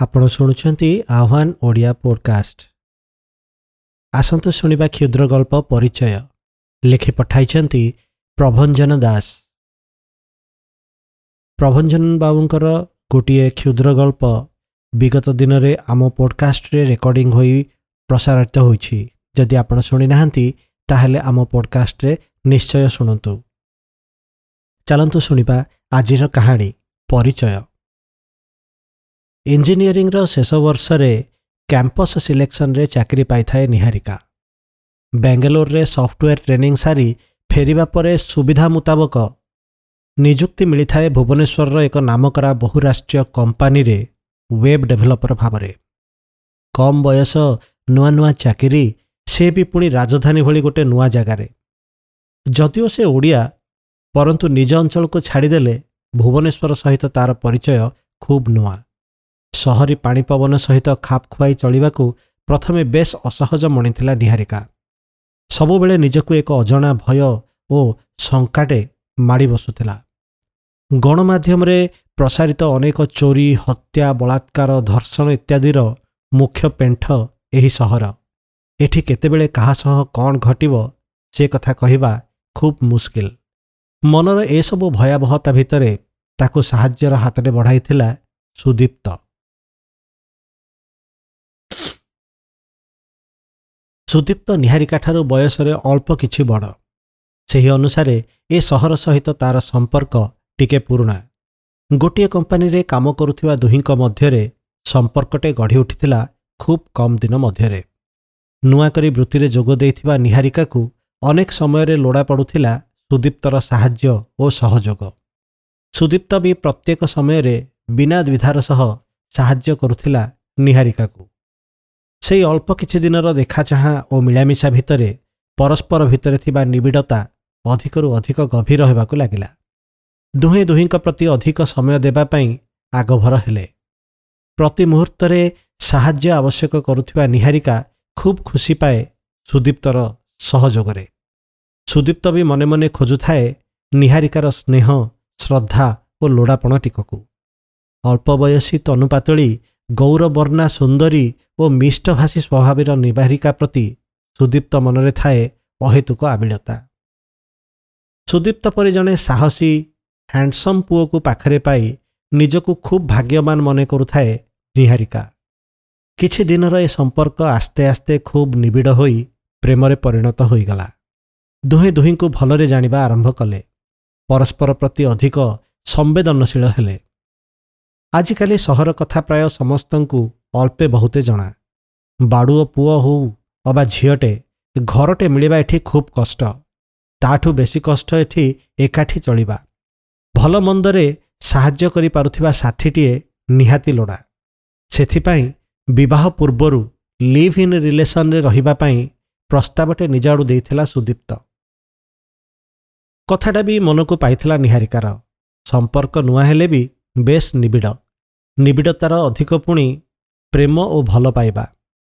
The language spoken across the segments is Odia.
ଆପଣ ଶୁଣୁଛନ୍ତି ଆହ୍ୱାନ ଓଡ଼ିଆ ପୋଡକାଷ୍ଟ। ଆସନ୍ତୁ ଶୁଣିବା କ୍ଷୁଦ୍ର ଗଳ୍ପ ପରିଚୟ। ଲେଖି ପଠାଇଛନ୍ତି ପ୍ରଭଞ୍ଜନ ଦାସ। ପ୍ରଭଞ୍ଜନ ବାବୁଙ୍କର ଗୋଟିଏ କ୍ଷୁଦ୍ର ଗଳ୍ପ ବିଗତ ଦିନରେ ଆମ ପୋଡକାଷ୍ଟରେ ରେକର୍ଡିଂ ହୋଇ ପ୍ରସାରିତ ହୋଇଛି। ଯଦି ଆପଣ ଶୁଣିନାହାନ୍ତି, ତାହେଲେ ଆମ ପୋଡକାଷ୍ଟରେ ନିଶ୍ଚୟ ଶୁଣନ୍ତୁ। ଚାଲନ୍ତୁ ଶୁଣିବା ଆଜିର କାହାଣୀ ପରିଚୟ। ଇଞ୍ଜିନିୟରିଂର ଶେଷ ବର୍ଷରେ କ୍ୟାମ୍ପସ୍ ସିଲେକ୍ସନରେ ଚାକିରି ପାଇଥାଏ ନିହାରିକା। ବାଙ୍ଗାଲୋରରେ ସଫ୍ଟୱେର୍ ଟ୍ରେନିଂ ସାରି ଫେରିବା ପରେ ସୁବିଧା ମୁତାବକ ନିଯୁକ୍ତି ମିଳିଥାଏ ଭୁବନେଶ୍ୱରର ଏକ ନାମକରା ବହୁରାଷ୍ଟ୍ରୀୟ କମ୍ପାନୀରେ ୱେବ୍ ଡେଭଲପର ଭାବରେ। କମ୍ ବୟସ, ନୂଆ ନୂଆ ଚାକିରି, ସେ ବି ପୁଣି ରାଜଧାନୀ ଭଳି ଗୋଟେ ନୂଆ ଜାଗାରେ। ଯଦିଓ ସେ ଓଡ଼ିଆ, ପରନ୍ତୁ ନିଜ ଅଞ୍ଚଳକୁ ଛାଡ଼ିଦେଲେ ଭୁବନେଶ୍ୱର ସହିତ ତାର ପରିଚୟ ଖୁବ୍ ନୂଆ। ସହରୀ ପାଣିପବନ ସହିତ ଖାପ ଖୁଆଇ ଚଳିବାକୁ ପ୍ରଥମେ ବେଶ୍ ଅସହଜ ମଣିଥିଲା ନିହାରିକା। ସବୁବେଳେ ନିଜକୁ ଏକ ଅଜଣା ଭୟ ଓ ଶଙ୍କାଟେ ମାଡ଼ି ବସୁଥିଲା। ଗଣମାଧ୍ୟମରେ ପ୍ରସାରିତ ଅନେକ ଚୋରି, ହତ୍ୟା, ବଳାତ୍କାର, ଧର୍ଷଣ ଇତ୍ୟାଦିର ମୁଖ୍ୟ ପେଣ୍ଠ ଏହି ସହର। ଏଠି କେତେବେଳେ କାହା ସହ କ'ଣ ଘଟିବ, ସେ କଥା କହିବା ଖୁବ୍ ମୁସ୍କିଲ। ମନର ଏସବୁ ଭୟାବହତା ଭିତରେ ତାକୁ ସାହାଯ୍ୟର ହାତରେ ବଢ଼ାଇଥିଲା ସୁଦୀପ୍ତ। ସୁଦୀପ୍ତ ନିହାରିକାଠାରୁ ବୟସରେ ଅଳ୍ପ କିଛି ବଡ଼। ସେହି ଅନୁସାରେ ଏ ସହର ସହିତ ତାର ସମ୍ପର୍କ ଟିକେ ପୁରୁଣା। ଗୋଟିଏ କମ୍ପାନୀରେ କାମ କରୁଥିବା ଦୁହିଁଙ୍କ ମଧ୍ୟରେ ସମ୍ପର୍କଟେ ଗଢ଼ି ଉଠିଥିଲା ଖୁବ୍ କମ୍ ଦିନ ମଧ୍ୟରେ। ନୂଆ କରି ବୃତ୍ତିରେ ଯୋଗ ଦେଇଥିବା ନିହାରିକାକୁ ଅନେକ ସମୟରେ ଲୋଡ଼ା ପଡ଼ୁଥିଲା ସୁଦୀପ୍ତର ସାହାଯ୍ୟ ଓ ସହଯୋଗ। ସୁଦୀପ୍ତ ବି ପ୍ରତ୍ୟେକ ସମୟରେ ବିନା ଦ୍ୱିଧାର ସହ ସାହାଯ୍ୟ କରୁଥିଲା ନିହାରିକାକୁ। ସେଇ ଅଳ୍ପ କିଛି ଦିନର ଦେଖାଚାହାଁ ଓ ମିଳାମିଶା ଭିତରେ ପରସ୍ପର ଭିତରେ ଥିବା ନିବିଡ଼ତା ଅଧିକରୁ ଅଧିକ ଗଭୀର ହେବାକୁ ଲାଗିଲା। ଦୁହେଁ ଦୁହିଁଙ୍କ ପ୍ରତି ଅଧିକ ସମୟ ଦେବା ପାଇଁ ଆଗଭର ହେଲେ। ପ୍ରତି ମୁହୂର୍ତ୍ତରେ ସାହାଯ୍ୟ ଆବଶ୍ୟକ କରୁଥିବା ନିହାରିକା ଖୁବ୍ ଖୁସି ପାଏ ସୁଦୀପ୍ତର ସହଯୋଗରେ। ସୁଦୀପ୍ତ ବି ମନେ ମନେ ଖୋଜୁଥାଏ ନିହାରିକାର ସ୍ନେହ, ଶ୍ରଦ୍ଧା ଓ ଲୋଡ଼ାପଣ ଟିକକୁ। ଅଳ୍ପ ବୟସୀ, ତନୁପାତଳୀ, ଗୌରବର୍ଣ୍ଣା ସୁନ୍ଦରୀ ଓ ମିଷ୍ଟଭାଷୀ ସ୍ୱଭାବର ନିହାରିକା ପ୍ରତି ସୁଦୀପ୍ତ ମନରେ ଥାଏ ଅହେତୁକ ଆବିଳତା। ସୁଦୀପ୍ତ ପରି ଜଣେ ସାହସୀ, ହ୍ୟାଣ୍ଡସମ୍ ପୁଅକୁ ପାଖରେ ପାଇ ନିଜକୁ ଖୁବ୍ ଭାଗ୍ୟବାନ ମନେ କରୁଥାଏ ନିହାରିକା। କିଛି ଦିନର ଏ ସମ୍ପର୍କ ଆସ୍ତେ ଆସ୍ତେ ଖୁବ୍ ନିବିଡ଼ ହୋଇ ପ୍ରେମରେ ପରିଣତ ହୋଇଗଲା। ଦୁହେଁ ଦୁହିଁଙ୍କୁ ଭଲରେ ଜାଣିବା ଆରମ୍ଭ କଲେ। ପରସ୍ପର ପ୍ରତି ଅଧିକ ସମ୍ବେଦନଶୀଳ ହେଲେ। ଆଜିକାଲି ସହର କଥା ପ୍ରାୟ ସମସ୍ତଙ୍କୁ ଅଳ୍ପେ ବହୁତେ ଜଣା। ବାଡ଼ୁଅ ପୁଅ ହଉ ଅବା ଝିଅଟେ, ଘରଟେ ମିଳିବା ଏଠି ଖୁବ୍ କଷ୍ଟ। ତାଠୁ ବେଶୀ କଷ୍ଟ ଏଠି ଏକାଠି ଚଳିବା। ଭଲ ମନ୍ଦରେ ସାହାଯ୍ୟ କରିପାରୁଥିବା ସାଥୀଟିଏ ନିହାତି ଲୋଡ଼ା। ସେଥିପାଇଁ ବିବାହ ପୂର୍ବରୁ ଲିଭ୍ ଇନ୍ ରିଲେସନରେ ରହିବା ପାଇଁ ପ୍ରସ୍ତାବଟେ ନିଜ ଆଡ଼ୁ ଦେଇଥିଲା ସୁଦୀପ୍ତ। କଥାଟା ବି ମନକୁ ପାଇଥିଲା ନିହାରିକାର। ସମ୍ପର୍କ ନୂଆ ହେଲେ ବି ବେଶ୍ ନିବିଡ଼। ନିବିଡ଼ତାର ଅଧିକ ପୁଣି ପ୍ରେମ ଓ ଭଲ ପାଇବା।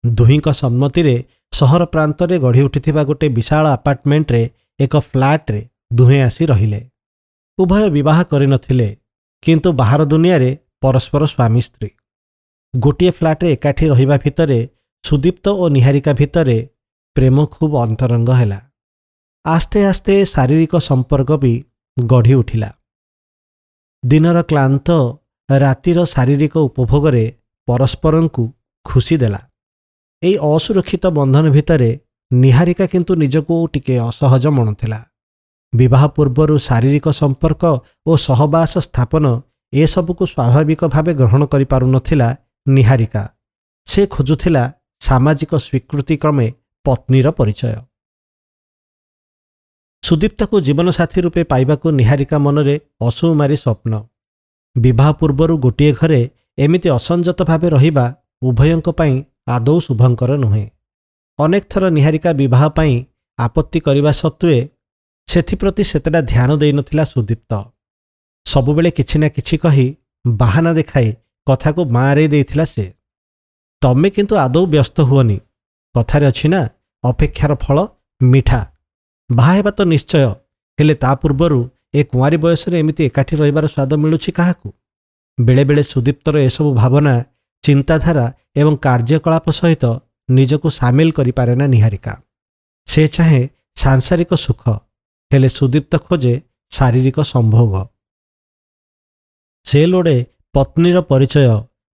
ଦୁହିଁଙ୍କ ସମ୍ମତିରେ ସହର ପ୍ରାନ୍ତରେ ଗଢ଼ି ଉଠିଥିବା ଗୋଟେ ବିଶାଳ ଆପାର୍ଟମେଣ୍ଟରେ ଏକ ଫ୍ଲାଟ୍ରେ ଦୁହେଁ ଆସି ରହିଲେ। ଉଭୟ ବିବାହ କରିନଥିଲେ, କିନ୍ତୁ ବାହାର ଦୁନିଆରେ ପରସ୍ପର ସ୍ୱାମୀ ସ୍ତ୍ରୀ। ଗୋଟିଏ ଫ୍ଲାଟ୍ରେ ଏକାଠି ରହିବା ଭିତରେ ସୁଦୀପ୍ତ ଓ ନିହାରିକା ଭିତରେ ପ୍ରେମ ଖୁବ୍ ଅନ୍ତରଙ୍ଗ ହେଲା। ଆସ୍ତେ ଆସ୍ତେ ଶାରୀରିକ ସମ୍ପର୍କ ବି ଗଢ଼ି ଉଠିଲା। ଦିନର କ୍ଳାନ୍ତ ରାତିର ଶାରୀରିକ ଉପଭୋଗରେ ପରସ୍ପରଙ୍କୁ ଖୁସି ଦେଲା। ଏଇ ଅସୁରକ୍ଷିତ ବନ୍ଧନ ଭିତରେ ନିହାରିକା କିନ୍ତୁ ନିଜକୁ ଟିକେ ଅସହଜ ମଣୁଥିଲା। ବିବାହ ପୂର୍ବରୁ ଶାରୀରିକ ସମ୍ପର୍କ ଓ ସହବାସ ସ୍ଥାପନ ଏସବୁକୁ ସ୍ୱାଭାବିକ ଭାବେ ଗ୍ରହଣ କରିପାରୁନଥିଲା ନିହାରିକା। ସେ ଖୋଜୁଥିଲା ସାମାଜିକ ସ୍ୱୀକୃତି କ୍ରମେ ପତ୍ନୀର ପରିଚୟ। ସୁଦୀପ୍ତକୁ ଜୀବନସାଥୀ ରୂପେ ପାଇବାକୁ ନିହାରିକା ମନରେ ଅସୁମାରୀ ସ୍ୱପ୍ନ। ବିବାହ ପୂର୍ବରୁ ଗୋଟିଏ ଘରେ ଏମିତି ଅସଂଯତ ଭାବେ ରହିବା ଉଭୟଙ୍କ ପାଇଁ ଆଦୌ ଶୁଭଙ୍କର ନୁହେଁ। ଅନେକ ଥର ନିହାରିକା ବିବାହ ପାଇଁ ଆପତ୍ତି କରିବା ସତ୍ତ୍ୱେ ସେଥିପ୍ରତି ସେତେଟା ଧ୍ୟାନ ଦେଇନଥିଲା ସୁଦୀପ୍ତ। ସବୁବେଳେ କିଛି ନା କିଛି କହି ବାହାନା ଦେଖାଇ କଥାକୁ ବାଁରେଇ ଦେଇଥିଲା ସେ। ତମେ କିନ୍ତୁ ଆଦୌ ବ୍ୟସ୍ତ ହୁଅନି, କଥାରେ ଅଛି ନା, ଅପେକ୍ଷାର ଫଳ ମିଠା। ବାହା ହେବା ତ ନିଶ୍ଚୟ, ହେଲେ ତା ପୂର୍ବରୁ ଏ କୁଆଁରୀ ବୟସରେ ଏମିତି ଏକାଠି ରହିବାର ସ୍ୱାଦ ମିଳୁଛି କାହାକୁ? ବେଳେବେଳେ ସୁଦୀପ୍ତର ଏସବୁ ଭାବନା ଚିନ୍ତାଧାରା ଏବଂ କାର୍ଯ୍ୟକଳାପ ସହିତ ନିଜକୁ ସାମିଲ କରିପାରେ ନା ନିହାରିକା। ସେ ଚାହେଁ ସାଂସାରିକ ସୁଖ, ହେଲେ ସୁଦୀପ୍ତ ଖୋଜେ ଶାରୀରିକ ସମ୍ଭୋଗ। ସେ ଲୋଡ଼େ ପତ୍ନୀର ପରିଚୟ,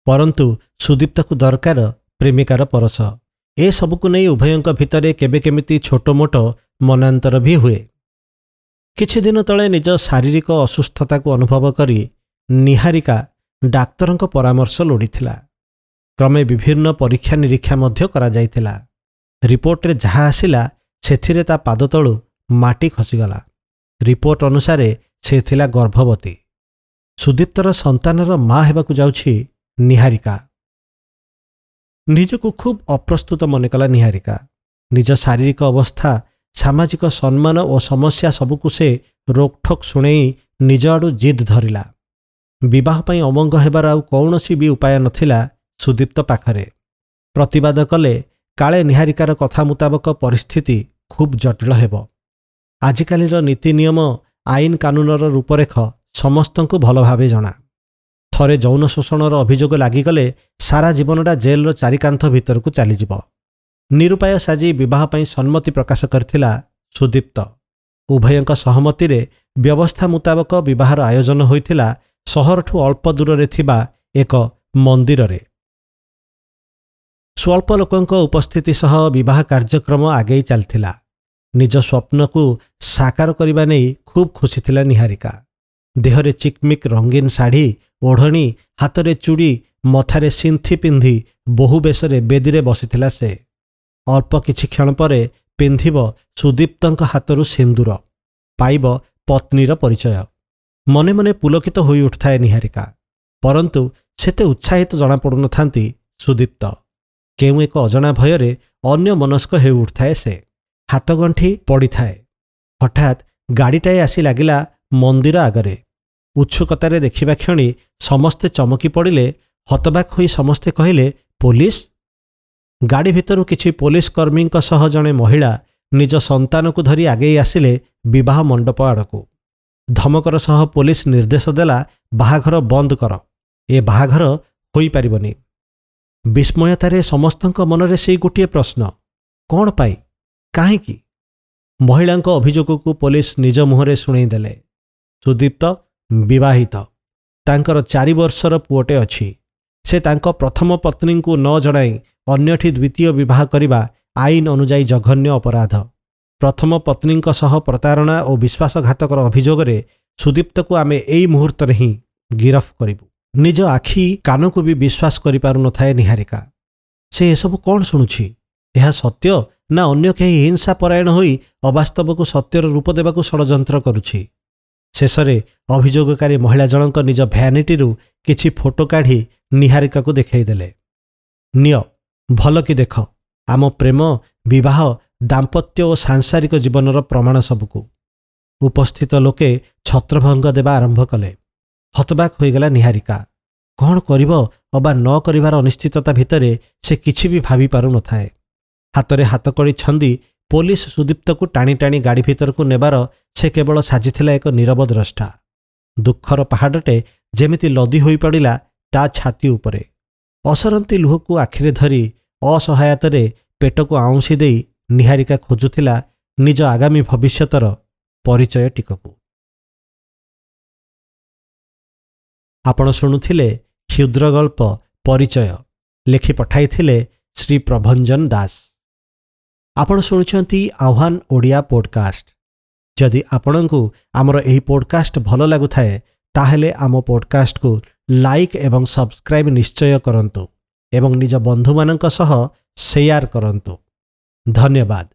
ପରନ୍ତୁ ସୁଦୀପ୍ତକୁ ଦରକାର ପ୍ରେମିକାର ପରଶ। ଏସବୁକୁ ନେଇ ଉଭୟଙ୍କ ଭିତରେ କେବେ କେମିତି ଛୋଟମୋଟ ମନାନ୍ତର ବି ହୁଏ। କିଛିଦିନ ତଳେ ନିଜ ଶାରୀରିକ ଅସୁସ୍ଥତାକୁ ଅନୁଭବ କରି ନିହାରିକା ଡାକ୍ତରଙ୍କ ପରାମର୍ଶ ଲୋଡ଼ିଥିଲା। କ୍ରମେ ବିଭିନ୍ନ ପରୀକ୍ଷା ନିରୀକ୍ଷା ମଧ୍ୟ କରାଯାଇଥିଲା। ରିପୋର୍ଟରେ ଯାହା ଆସିଲା ସେଥିରେ ତା ପାଦତଳୁ ମାଟି ଖସିଗଲା। ରିପୋର୍ଟ ଅନୁସାରେ ସେ ଥିଲା ଗର୍ଭବତୀ। ସୁଦୀପ୍ତର ସନ୍ତାନର ମା ହେବାକୁ ଯାଉଛି ନିହାରିକା। ନିଜକୁ ଖୁବ୍ ଅପ୍ରସ୍ତୁତ ମନେକଲା ନିହାରିକା। ନିଜ ଶାରୀରିକ ଅବସ୍ଥା, ସାମାଜିକ ସମ୍ମାନ ଓ ସମସ୍ୟା ସବୁକୁ ସେ ରୋକଠୋକ୍ ଶୁଣେଇ ନିଜ ଆଡ଼ୁ ଜିଦ୍ ଧରିଲା। ବିବାହ ପାଇଁ ଅମଙ୍ଗ ହେବାର ଆଉ କୌଣସି ବି ଉପାୟ ନଥିଲା ସୁଦୀପ୍ତ ପାଖରେ। ପ୍ରତିବାଦ କଲେ କାଳେ ନିହାରିକାର କଥା ମୁତାବକ ପରିସ୍ଥିତି ଖୁବ୍ ଜଟିଳ ହେବ। ଆଜିକାଲିର ନୀତି ନିୟମ, ଆଇନ କାନୁନର ରୂପରେଖ ସମସ୍ତଙ୍କୁ ଭଲ ଭାବେ ଜଣା। ଥରେ ଯୌନ ଶୋଷଣର ଅଭିଯୋଗ ଲାଗିଗଲେ ସାରା ଜୀବନଟା ଜେଲର ଚାରିକାନ୍ଥ ଭିତରକୁ ଚାଲିଯିବ। ନିରୁପାୟ ସାଜି ବିବାହ ପାଇଁ ସମ୍ମତି ପ୍ରକାଶ କରିଥିଲା ସୁଦୀପ୍ତ। ଉଭୟଙ୍କ ସହମତିରେ ବ୍ୟବସ୍ଥା ମୁତାବକ ବିବାହର ଆୟୋଜନ ହୋଇଥିଲା ସହରଠୁ ଅଳ୍ପ ଦୂରରେ ଥିବା ଏକ ମନ୍ଦିରରେ। ସ୍ୱଳ୍ପ ଲୋକଙ୍କ ଉପସ୍ଥିତି ସହ ବିବାହ କାର୍ଯ୍ୟକ୍ରମ ଆଗେଇ ଚାଲିଥିଲା। ନିଜ ସ୍ୱପ୍ନକୁ ସାକାର କରିବା ନେଇ ଖୁବ୍ ଖୁସି ଥିଲା ନିହାରିକା। ଦେହରେ ଚିକ୍ମିକ୍ ରଙ୍ଗୀନ ଶାଢ଼ୀ, ଓଢ଼ଣୀ, ହାତରେ ଚୁଡ଼ି, ମଥାରେ ସିନ୍ଥି ପିନ୍ଧି ବହୁ ବେଶରେ ବେଦୀରେ ବସିଥିଲା ସେ। ଅଳ୍ପ କିଛି କ୍ଷଣ ପରେ ପିନ୍ଧିବ ସୁଦୀପ୍ତଙ୍କ ହାତରୁ ସିନ୍ଦୁର, ପାଇବ ପତ୍ନୀର ପରିଚୟ। ମନେ ମନେ ପୁଲକିତ ହୋଇ ଉଠୁଥାଏ ନିହାରିକା, ପରନ୍ତୁ ସେତେ ଉତ୍ସାହିତ ଜଣାପଡ଼ୁନଥାନ୍ତି ସୁଦୀପ୍ତ। କେଉଁ ଏକ ଅଜଣା ଭୟରେ ଅନ୍ୟମନସ୍କ ହେଉ ଉଠୁଥାଏ ସେ। ହାତଗଣ୍ଠି ପଡ଼ିଥାଏ। ହଠାତ୍ ଗାଡ଼ିଟାଏ ଆସି ଲାଗିଲା ମନ୍ଦିର ଆଗରେ। ଉତ୍ସୁକତାରେ ଦେଖିବା କ୍ଷଣି ସମସ୍ତେ ଚମକି ପଡ଼ିଲେ। ହତବାକ୍ ହୋଇ ସମସ୍ତେ କହିଲେ, ପୋଲିସ! ଗାଡ଼ି ଭିତରୁ କିଛି ପୋଲିସ କର୍ମୀଙ୍କ ସହ ଜଣେ ମହିଳା ନିଜ ସନ୍ତାନକୁ ଧରି ଆଗେଇ ଆସିଲେ ବିବାହ ମଣ୍ଡପ ଆଡ଼କୁ। ଧମକର ସହ ପୋଲିସ ନିର୍ଦ୍ଦେଶ ଦେଲା, ବାହାଘର ବନ୍ଦ କର, ଏ ବାହାଘର ହୋଇପାରିବନି। ବିସ୍ମୟତାରେ ସମସ୍ତଙ୍କ ମନରେ ସେଇ ଗୋଟିଏ ପ୍ରଶ୍ନ, କ'ଣ ପାଇଁ, କାହିଁକି? ମହିଳାଙ୍କ ଅଭିଯୋଗକୁ ପୋଲିସ ନିଜ ମୁହଁରେ ଶୁଣେଇଦେଲେ। ସୁଦୀପ୍ତ ବିବାହିତ, ତାଙ୍କର 4 ବର୍ଷର ପୁଅଟେ ଅଛି। ସେ ତାଙ୍କ ପ୍ରଥମ ପତ୍ନୀଙ୍କୁ ନ ଜଣାଇ ଅନ୍ୟଠି ଦ୍ୱିତୀୟ ବିବାହ କରିବା ଆଇନ ଅନୁଯାୟୀ ଜଘନ୍ୟ ଅପରାଧ। ପ୍ରଥମ ପତ୍ନୀଙ୍କ ସହ ପ୍ରତାରଣା ଓ ବିଶ୍ୱାସଘାତକର ଅଭିଯୋଗରେ ସୁଦୀପ୍ତକୁ ଆମେ ଏଇ ମୁହୂର୍ତ୍ତରେ ହିଁ ଗିରଫ କରିବୁ। ନିଜ ଆଖି କାନକୁ ବି ବିଶ୍ୱାସ କରିପାରୁନଥାଏ ନିହାରିକା। ସେ ଏସବୁ କ'ଣ ଶୁଣୁଛି? ଏହା ସତ୍ୟ ନା ଅନ୍ୟ କେହି ହିଂସା ପରାୟଣ ହୋଇ ଅବାସ୍ତବକୁ ସତ୍ୟର ରୂପ ଦେବାକୁ ଷଡ଼ଯନ୍ତ୍ର କରୁଛି? ଶେଷରେ ଅଭିଯୋଗକାରୀ ମହିଳା ଜଣଙ୍କ ନିଜ ଭ୍ୟାନିଟିରୁ କିଛି ଫଟୋ କାଢ଼ି ନିହାରିକାକୁ ଦେଖାଇଦେଲେ। ନିଅ, ଭଲ କି ଦେଖ ଆମ ପ୍ରେମ, ବିବାହ, ଦାମ୍ପତ୍ୟ ଓ ସାଂସାରିକ ଜୀବନର ପ୍ରମାଣ ସବୁକୁ। ଉପସ୍ଥିତ ଲୋକେ ଛତ୍ରଭଙ୍ଗ ଦେବା ଆରମ୍ଭ କଲେ। ହତବାକ୍ ହୋଇଗଲା ନିହାରିକା। କ'ଣ କରିବ ଅବା ନ କରିବାର ଅନିଶ୍ଚିତତା ଭିତରେ ସେ କିଛି ବି ଭାବି ପାରୁନଥାଏ। ହାତରେ ହାତକଡ଼ି ଛନ୍ଦି ପୋଲିସ ସୁଦୀପ୍ତକୁ ଟାଣି ଟାଣି ଗାଡ଼ି ଭିତରକୁ ନେବାର ସେ କେବଳ ସାଜିଥିଲା ଏକ ନୀରବ ଦ୍ରଷ୍ଟା। ଦୁଃଖର ପାହାଡ଼ଟେ ଯେମିତି ଲଦି ହୋଇପଡ଼ିଲା ତା ଛାତି ଉପରେ। ଅସରନ୍ତି ଲୁହକୁ ଆଖିରେ ଧରି ଅସହାୟତାରେ ପେଟକୁ ଆଉଁସି ଦେଇ ନିହାରିକା ଖୋଜୁଥିଲା ନିଜ ଆଗାମୀ ଭବିଷ୍ୟତର ପରିଚୟ ଟିକକୁ। ଆପଣ ଶୁଣୁଥିଲେ କ୍ଷୁଦ୍ର ଗଳ୍ପ ପରିଚୟ, ଲେଖି ପଠାଇଥିଲେ ଶ୍ରୀ ପ୍ରଭଞ୍ଜନ ଦାସ। ଆପଣ ଶୁଣୁଛନ୍ତି ଆହ୍ୱାନ ଓଡ଼ିଆ ପୋଡ଼କାଷ୍ଟ। ଯଦି ଆପଣଙ୍କୁ ଆମର ଏହି ପୋଡ଼କାଷ୍ଟ ଭଲ ଲାଗୁଥାଏ, ତାହେଲେ ଆମ ପୋଡ଼କାଷ୍ଟକୁ ଲାଇକ୍ ଏବଂ ସବସ୍କ୍ରାଇବ୍ ନିଶ୍ଚୟ କରନ୍ତୁ ଏବଂ ନିଜ ବନ୍ଧୁମାନଙ୍କ ସହ ସେୟାର କରନ୍ତୁ। ଧନ୍ୟବାଦ।